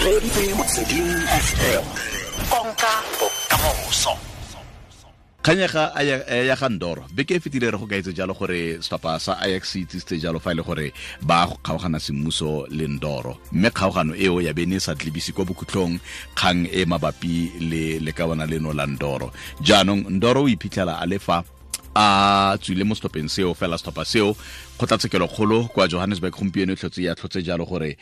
Reeditse Motsweding FM. Konka bokamoso. Kganyega ya ga Ndoro beke e fetile re go kaetse jalo gore setlhopha sa Ajax se itsisitse jalo fa e le gore ba go kgaogana semmuso le Ndoro, mme kgaogano eo ya bene e sa tlebise kwa bokhutlong kgang e mabapi le lekawana leno la Ndoro. Jaanong Ndoro o iphitlhela a le fa a tswile mo setlhopheng seo, fela setlhopha seo kgotlatshekelokgolo kwa Johannesburg gompieno e tlhotse ya tlhotse jalo gore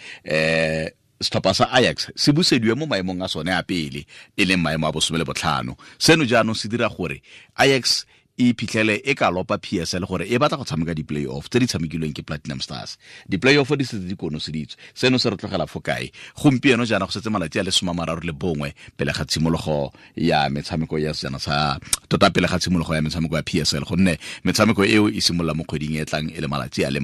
setlhopha sa Ajax se busediwe mo maemong a sone a pele, e leng maemo a 15. Seno jaanong se dira gore Ajax e iphitlhele e ka lopa PSL gore e batla go tshameka di-playoff tse di tshamekilweng ke Platinum Stars. Di-playoff di setse di konoseditswe. Seno se re tlogela fo kae? Gompieno jaana go setse malatsi a le 31 pele ga tshimologo ya metshameko ya sejana sa tota, pele ga tshimologo ya metshameko ya PSL, gonne metshameko eo e simolola mo kgweding e tlang e le malatsi a le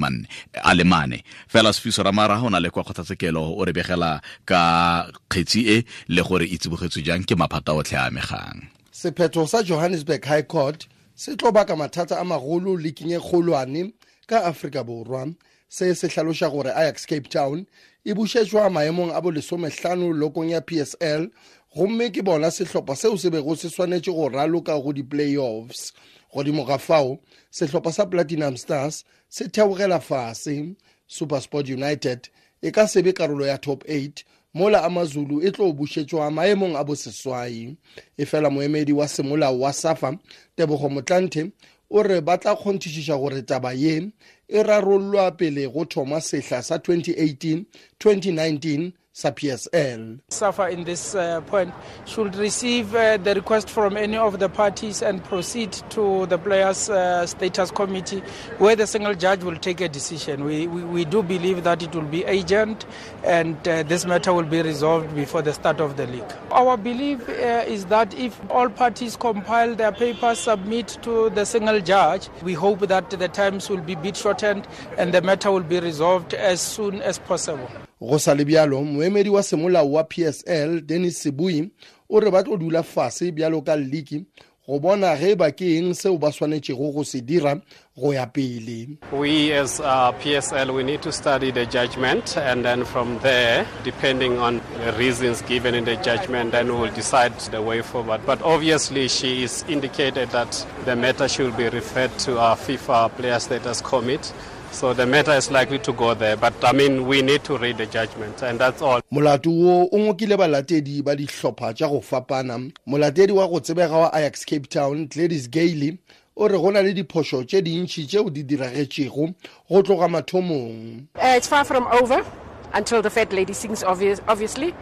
mane fela. Sefiso Ramara o na le kwa kgotlatshekelo, o re begela ka kgetsi e le gore e tsibogetswe jang ke maphata otlhe a amegang. Sephetho sa Johannesburg High Court se tlo baka mathata a magolo leaking e kgolwane ka Afrika Borwa. Se se hlaloša gore Ajax Cape Town e bušetšwa maemong a bo 15 lokong ya PSL, gomme ke bona sehlopha seo se bego se swanetše go raloka go di-playoffs. Godimo ga fao, sehlopha sa Platinum Stars se theogela fase. SuperSport United e ka se be karolo ya top 8, mola AmaZulu e tlo bušetšwa maemong a boseswai. E fela moemedi wa semolao wa SAFA, Tebogo Motlanthe, o re ba tla kgonthišiša gore taba ye e rarollwa pele go thoma sehla sa 2018-2019 sa PSL. SAFA in this point should receive the request from any of the parties and proceed to the players' status committee, where the single judge will take a decision. We do believe that it will be urgent and this matter will be resolved before the start of the league. Our belief is that if all parties compile their papers, submit to the single judge, we hope that the times will be bit shortened and the matter will be resolved as soon as possible. Go sa le bjalo, moemedi wa semolao wa PSL, Dennis Sebui, o re ba tlo dula fase bjalo ka league go bona ge ba ke eng seo ba swanetšego go se dira go ya pele. We as PSL, we need to study the judgment, and then from there, depending on the reasons given in the judgment, then we will decide the way forward. But obviously she is indicated that the matter should be referred to our FIFA Player Status Committee. So the matter is likely to go there, but I mean, we need to read the judgment, and that's all. Molato wo o ngokile balatedi ba dihlopha tša go fapana. Molatedi wa go tsebega wa Ajax Cape Town, Gladys Gailey, o re go na le diphošo tše dintši tšeo di diragetšego go tloga mathomong. It's far from over until the fat lady sings, obviously,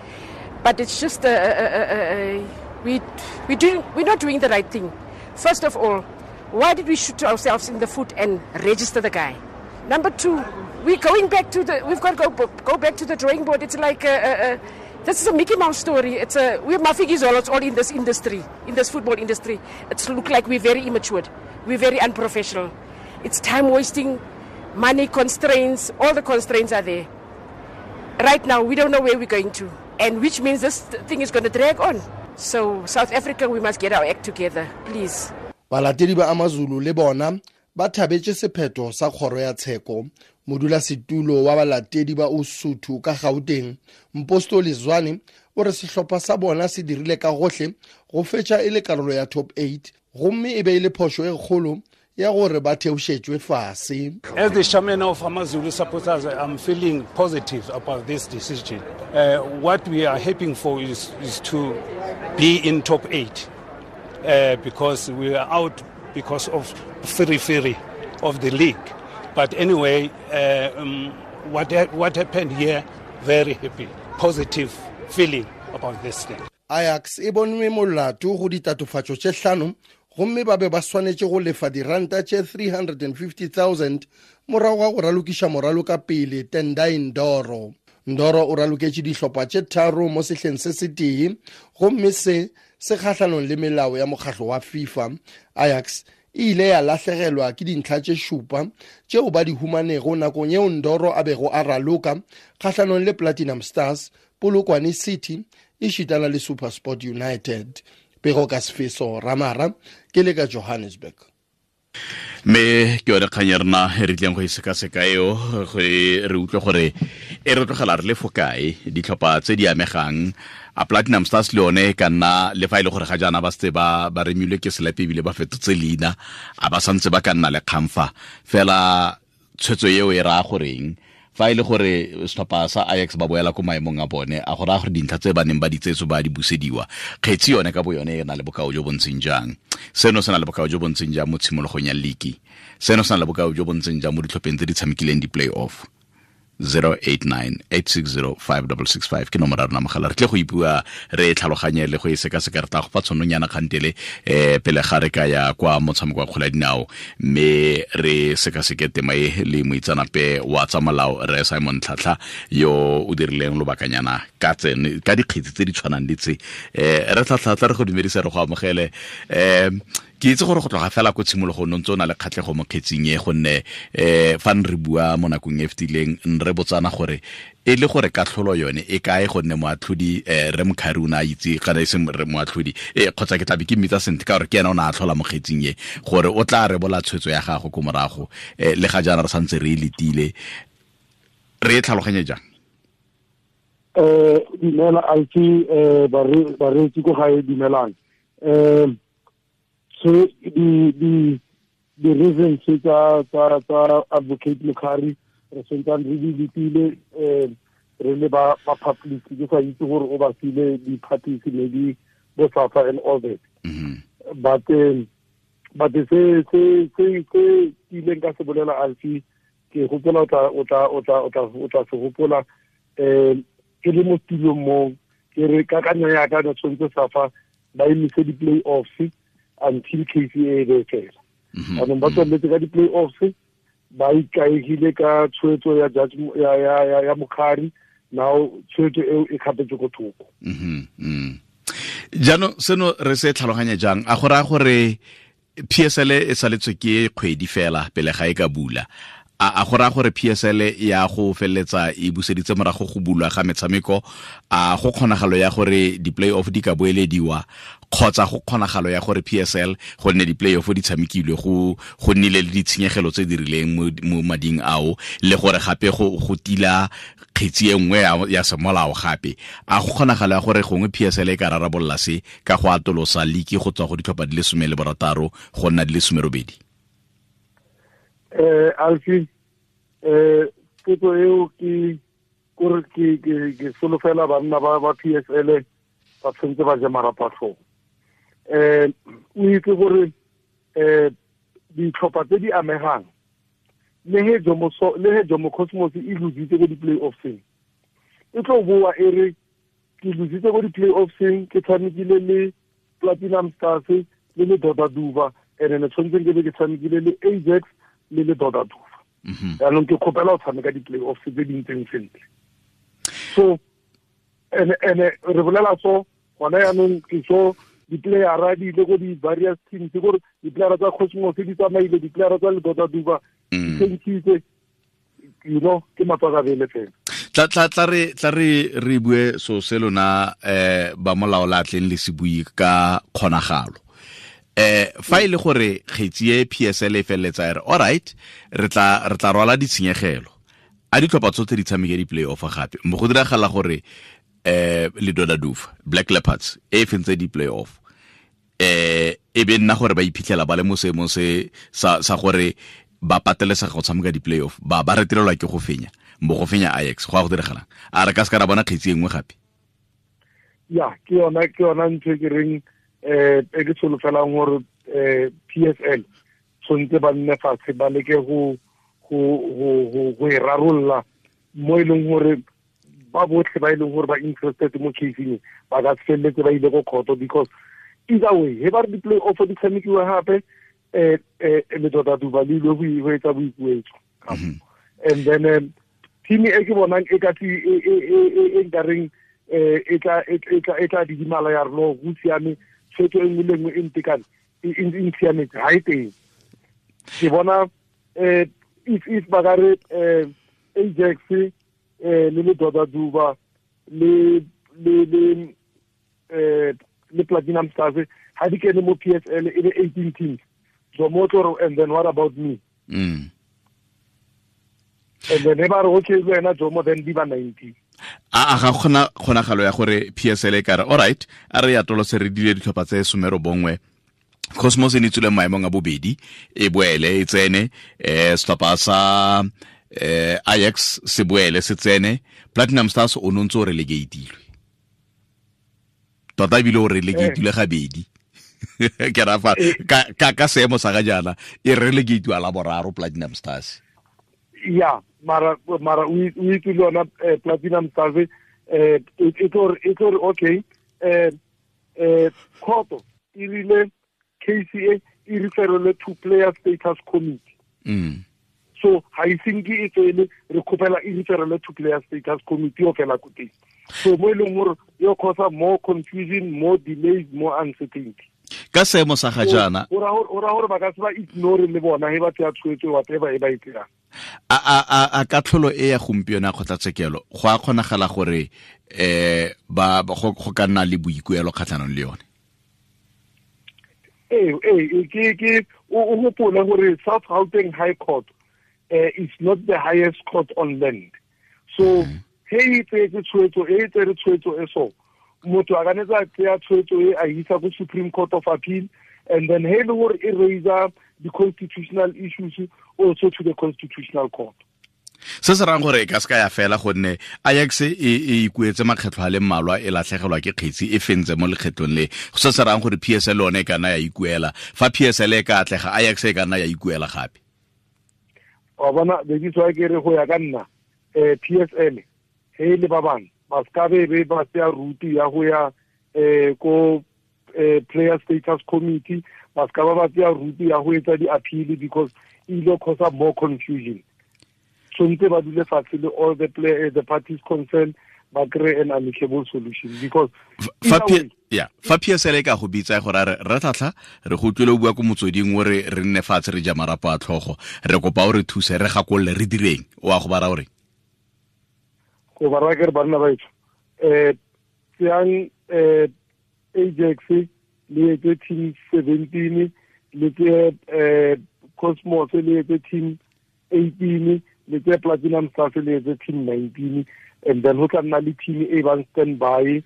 but it's just we're not doing the right thing. First of all, why did we shoot ourselves in the foot and register the guy? Number two, we're going back to the. We've got to go back to the drawing board. It's like this is a Mickey Mouse story. It's a we're Mafikizolo. It's all in this industry, in this football industry. It's look like we're very immature, we're very unprofessional. It's time wasting, money constraints. All the constraints are there. Right now, we don't know where we're going to, and which means this thing is going to drag on. So South Africa, we must get our act together, please. Balatedi ba AmaZulu le bona ba thabetše sephetho sa kgoro ya tsheko. Modulasetulo wa balatedi ba Usuthu ka Gauteng, Mpostoli Zwane, o re sehlopha sa bona se dirile ka gohle go fetša e le karolo ya top 8, gomme e be e le phošo e kgolo ya gore ba theošetšwe fase. As the chairman of AmaZulu supporters, I'm feeling positive about this decision. What we are hoping for is to be in top 8, because we are out because of free of the league. But anyway, what happened here, very happy, positive feeling about this thing. Ajax e bonwe molato go ditatofatšo tše 5, gomme ba be ba swanetše go lefa diranta tše 350,000 morago ga go ralokiša moraloka pele Tendai Ndoro. Ndoro o raloketše dihlopha tše 3 mo sehleng se setee, gomme se se kgahlanong le melao ya mokgahlo wa FIFA. Ajax e ile ya lahlegelwa ke dintlha tše 7 tšeo ba di humanego nakong yeo Ndoro a bego a raloka kgahlanong le Platinum Stars, Polokwane City, e šitana le SuperSport United. Pego ka Sefeso Ramara, ke le ka Johannesburg. Mme ke yone kgang ya rena e re tlileng go e sekaseka eo, re utlwe gore E re tlogela re le fo kae ditlhopha tse di amegang a Platinum Stars le yone ka nna le fa e le gore ga jaana ba setse ba remilwe ke selepe ebile ba fetotse leina a ba santse ba ka nna le kgang fa fela tshwetso eo e raya goreng fa e le gore setlhopha sa Ajax ba boela ko maemong a bone a go raya gore dintlha tse ba neng ba di tseetso ba di busediwa kgetsi yone ka bo yone e na le bokao jo bo ntseng jang seno se na le bokao jo bo ntseng jang mo tshimologong ya liki seno se na le bokao jo bo ntseng jang mo ditlhopheng tse di tshamekileng di-play-off 089-860-5665 ke nomoro ya rona mogala re tle go ipua re tlhaloganye le go e sekaseka re tla go fa tshononyana kgantele pele ga re ka ya kwa motshameko wa kgwele ya dinao mme re sekaseke tema e le moitseanape wa tsa molao re Simon Tlhatlha yo o dirileng lobakanyana ka dikgetsi tse di tshwanang le tse re Tlhatlha re go dumedisa re go amogele ke itse gore go tloga fela ko tshimologong o ntse o na le kgatlhego mo kgetsing e gonne fa re bua mo nakong e fetileng re botsana gore e le gore katlholo yone e kae gonne moatlhodi re Mkhari o ne a itse kana e seng re moatlhodi kgotsa ke tlabe ke mmitsa sentle ka gore ke ena o ne a tlhola mo kgetsing e gore o tla rebola tshwetso ya gago ko morago le ga jaana re santse re e letile re e tlhaloganye jang Dumela Alfi bareetsi ko gae dumelang so the reasons tsa advocate Mkhari re sentsane re di letile re le ba public ke sa itse gore o ba file di-parties maybe bo SAFA and all that but se ke ileng ka se bolela Alfi ke gopola o tla se gopola ke le mo tulong mo ke re kakanyo ya ka ne tshwanetse SAFA ba emise di-play-offs until KCA be fela. Anong ba tsweletse ka di-play-offs ba ikaegile ka tshwetso ya judge ya Mkhari now tshwetso eo e kgapetswe ko thoko. Jaanong seno re se tlhaloganya jang a go raya gore PSL e saletswe ke kgwedi fela pele ga e ka bula a go raya gore PSL ya go feleletsa e buseditse morago go bulwa ga metshameko a go kgonagalo ya gore di-play-off di ka boelediwa kgotsa go kgonagalo ya gore PSL gonne di-play-off di tshamekilwe go nnile le ditshenyegelo tse di rileng mo mading ao le gore gape go tila kgetsi e nngwe ya semolao gape a go kgonagalo ya gore gongwe PSL e ka rarabolola se ka go atolosa liki go tswa go ditlhopha di le 16 go nna di le 18. Alfi potso eo ke kore ke solofela banna ba PSL ba tshwanetse ba je marapo a tlhogo. O itse gore ditlhopha tse di amegang le he Jomo Cosmos e lositse ko di-play-offseng e tlo boa e re ke lositse ko di-play-offseng ke tshamekile le Platinum Stars le le Dota Duba and ne tshwanetse ke be ke tshamekile le Ajax le le Dota Duba. Jaanong ke kgopela go tshameka di-play-offs tse di ntseng sentle. So ene re bolela so gona jaanong ke so di-playera di ile ko di-various teams gore di-playera tsa Cosmos di tsamaile di-playera tsa le Dota Duba di tshentshitse you know ke matswakabele fela. Tla re bue so se lona ba molao la tleng le se bue ka kgonagalo. Fa e le gore kgetsi e PSL e feleletsa e re all right re tla rwala ditshenyegelo a ditlhopha tsotlhe di tshameke di-play-off gape mo go diragala gore le Dota Dufa Black Leopards e fentse di-play-off e be nna gore ba iphitlhela ba le mo seemong se sa gore ba patelesega go tshameka di-play-off ba retelelwa ke go fenya mo go fenya Ajax go a go diragalang a re ka se ka ra bona kgetsi e nngwe gape ya ke yona ntho e ke reng e ke solofelang gore PSL tshwanetse ba nne fatshe ba leke go e rarolola mo e leng gore ba botlhe ba e leng gore ba interested mo caseng ba ka se feleletse ba ile ko kgoto because either way he ba re di-play-off di tshamekiwa gape le Dota Duba le ile go etsa boikuetso and then team e ke bonang e ka e nkareng e tla didimala ya re no go siame tshwetso e nngwe le nngwe e ntekane e nsiametse ga e teng ke bona if ba ka re Ajax le Dota Duba le Platinum Stars ha di kene mo PSL e be 18 teams so mo tlo and then what about me And then ba re okay le wena Jomo, then di ba 19. A ga gona kgonagalo ya gore PSL e kare all right, a re ya tolose re dile ditlhopha tse 19. Cosmos e ne tsule maemong a bobedi, e boele e tsene, setlhopha sa Ajax se boele se tsene, Platinum Stars o nontse o relegatilwe. Tota ebile o relegatilwe gabedi. Ke ra fa ka seemo sa ga jaana e relegatwa la boraro Platinum Stars. Ya, mara o itse le yona Platinum Stars e tlo re okay, khoto e rile KCA e referele to player status committee. So ha e senke e tswele re khopela e referele to player status committee o fela ko teng. So mo e leng gore yo cause more confusion, more delays, more uncertainty. Ka seemo sa ga jaana o ra gore ba ka se ba ignore le bona he ba tsaya tshwetso whatever e ba e tseyang. A katlholo e ya gompieno ya kgotlatshekelo go a kgonagala gore ba go ka nna le boikuelo kgatlhanong le yone? Ke o gopole gore South Gauteng High Court is not the highest court on land. So he e tsetse tshwetso e tsere tshwetso e so motho a ka netsa tseya tshwetso e a isa ko Supreme Court of Appeal, and then he le gore e raise the constitutional issues also to the Constitutional Court. Se se rang gore e ka se ka ya fela gonne Ajax e ikuetse makgetlho a le mmalwa e latlhegelwa ke kgetsi e fentse mo lekgetlong le. Se se rang gore PSL one e ka nna ya ikuela. Fa PSL e ka atlega, Ajax e ka nna ya ikuela gape. Wa bona bediswa ke re go ya ka nna PSL he le ba bang ba ska be ba tsaya route ya go ya ko player status committee, ba ska ba tsaya route ya go etsa di-appeal because e ile cause more confusion. Tshwanetse ba dule fatshe le all the play, the parties concerned, ba kry an amicable solution because fa PSL e ka go bitsa gore re tlhatlha re go utlwile o bua ko motsweding o re re nne fatshe re ja marapo a tlhogo, re kopa o re thuse re gakolole re direng, o a go bara o reng? Go bara ke re banna ba etsho tseyang Ajax le etse team 17, le tse Cosmos le etse team 18, le tse Platinum Stars le etse team 19, and then ho tla nna le team e bang stand by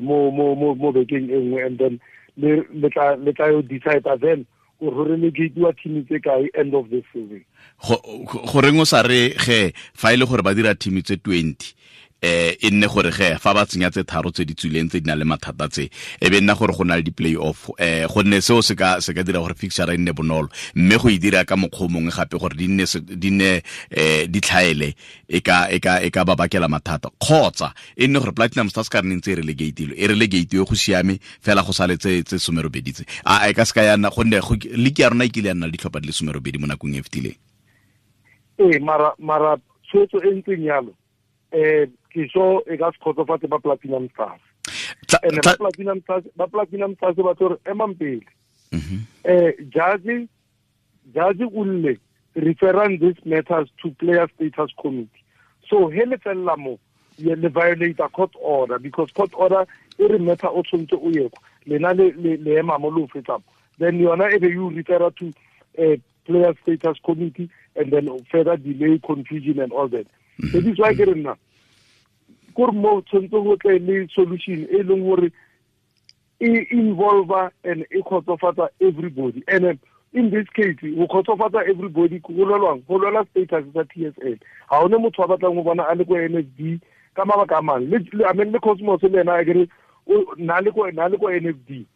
mo bekeng e nngwe, and then le tla yo decide then gore relegatiwa team tse kae end of the season. Goreng o sa re ge fa ile gore ba dira team tse 20 e nne gore ge fa ba tsenya tse tharo tse di tswileng tse di nang le mathata tse e be nna gore go na le di-play off, gonne seo se ka dira gore fixture e nne bonolo, mme go e dira ka mokgwa o mongwe gape gore di nne di tlhaele e ka ba bakela mathata, kgotsa e nne gore Platinum Stars ka re ntse e relegatilwe, e relegatwe go siame fela go sale tse 18 tse. A e ka se ka ya nna gonne league ya rona e kile ya nna le ditlhopha di le 18 mo nakong e fetileng. Mara tshwetso e ntseng yalo ke so e ka se kgotsofatse ba Platinum Stars. And ba Platinum Stars ba tlo re emang pele. Judge o lle referring these matters to player status committee. So he le fella mo le violate a court order because court order e re matter o tshwanetse o ye kwa lena le ema mo lo fetsa, then yona e be you refer to player status committee and then further delay, confusion and all that. That is why ke re nna gore mo tshwanetse go tle le solution e leng gore e involve and e kgotsofatsa everybody. And in this case go kgotsofatsa everybody go lwelwang, go lwela status sa PSL. Ha one motho a batlang go bona a le ko NFD ka mabaka a mang, le I mean le Cosmos le ena a kere na le ko NFD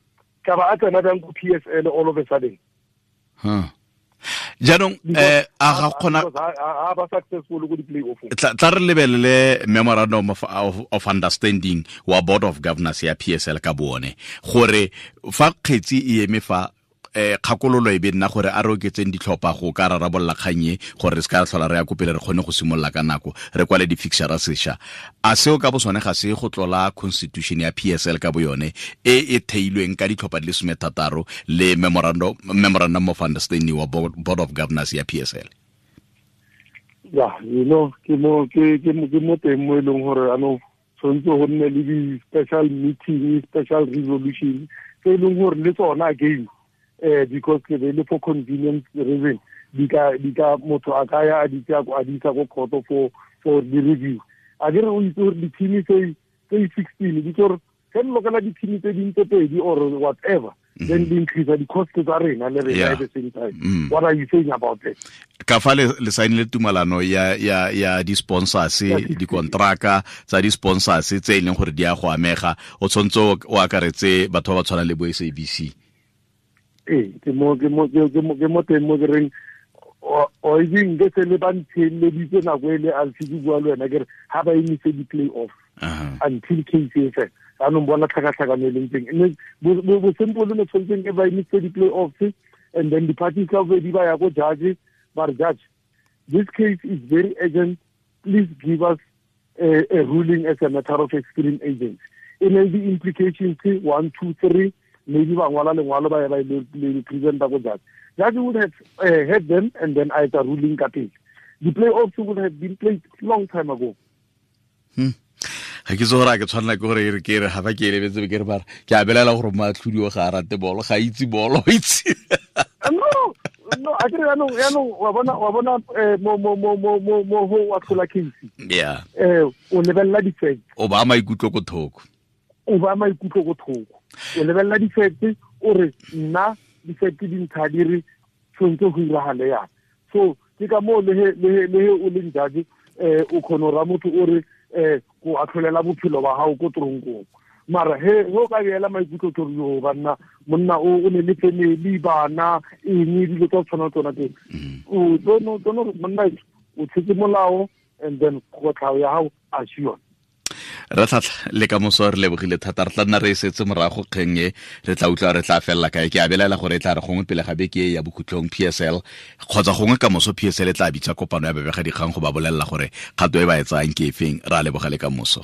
ka ba a tsena bjang ko PSL all of a sudden. Jaanong a ga kgona a ba successful go di play-off. Tla re lebelele memorandum of understanding wa Board of Governors ya PSL ka bone gore fa kgetsi e eme fa kgakololo e be nna gore a re oketseng ditlhopha go ka rarabolola kgang e gore re se ka tlhola re ya ko pele re kgone go simolola ka nako re kwale di-fixture sešwa. A seo ka bo sone ga se go tlola constitution ya PSL ka bo yone e e theilweng ka ditlhopha di le 16 le memorandum of understanding wa Board of Governors ya PSL? Ya, you know, ke mo teng mo e leng gore anong tshwanetse go nne le di-special meeting, special resolution tse e leng gore le tsona again because ke be le for convenience reason di ka motho a ka ya a di tsaya a di isa ko court for the review. A ke re o itse gore di-team tse 16 di tlo re lokela di-team tse ding tse pedi or whatever, then di increase the cost tsa rena le rena at the same time. What are you saying about that? Ka fa le saenile tumalano ya di-sponsors, dikontraka tsa di-sponsors tse e leng gore di a go amega, o tshwanetse o akaretse batho ba ba tshwanang le bo SABC. Ee, ke mo teng mo ke reng o itseng ke se le ba ntheeleditse nako e le a se ke bua le wena ke re ha ba emise di-play off until case e fela. Jaanong bona tlhakatlhakano e leng teng. Bo simple ne tshwanetseng e ba emise di-play offs and then di-parties ka bobedi ba ya ko judge, ba re judge, this case is very urgent, please give us a ruling as a matter of extreme urgency. E ne di implications 1 2 3, maybe ba ngwala lengwalo ba ya ba le presenta ko judge. Judge would have had them and then either ruling ka pele. The playoffs would have been played long time ago. Ga ke itse gore a ke tshwanela ke gore ke re ga ba ke elebetse ke re bara ke a belela gore moatlhodi o ga a rate bolo, ga itse bolo, itse. No, a ke re yaanong wa bona mo go atlhola case. Yeah. O lebelela di-facts. O ba maikutlo ko thoko. O ba maikutlo ko thoko. O lebelela di-facts, o re nna di-facts di ntsha di re tshwanetse go iragale yana. So ke ka moo le he o leng judge, o kgona go raya motho o re go atlholela bophelo ba gago ko toronkong. Mara he o ka beela maikutlo ke gore yo banna monna o ne le family, bana, eng dilo tsa tshwana tsona teng. O tlono monna o tshetse molao and then kotlhao ya gago a se yone. Re tlhatlha le ka moso re lebogile thata, re tla nna re e setse morago kgeng e, re tla utlwa re tla felela kae. Ke a belaela gore e tla re gongwe pele ga beke e ya bokhutlong PSL kgotsa gongwe ka moso PSL e tla bitsa kopano ya babegadikgang go ba bolelela gore kgato e ba e tsayang ke efeng. Re a leboga le ka moso.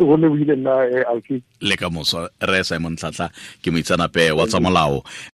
Go lebogile nna, Alfie. Le ka moso. Re Simon Tlhatlha ke moitseanape wa tsa molao.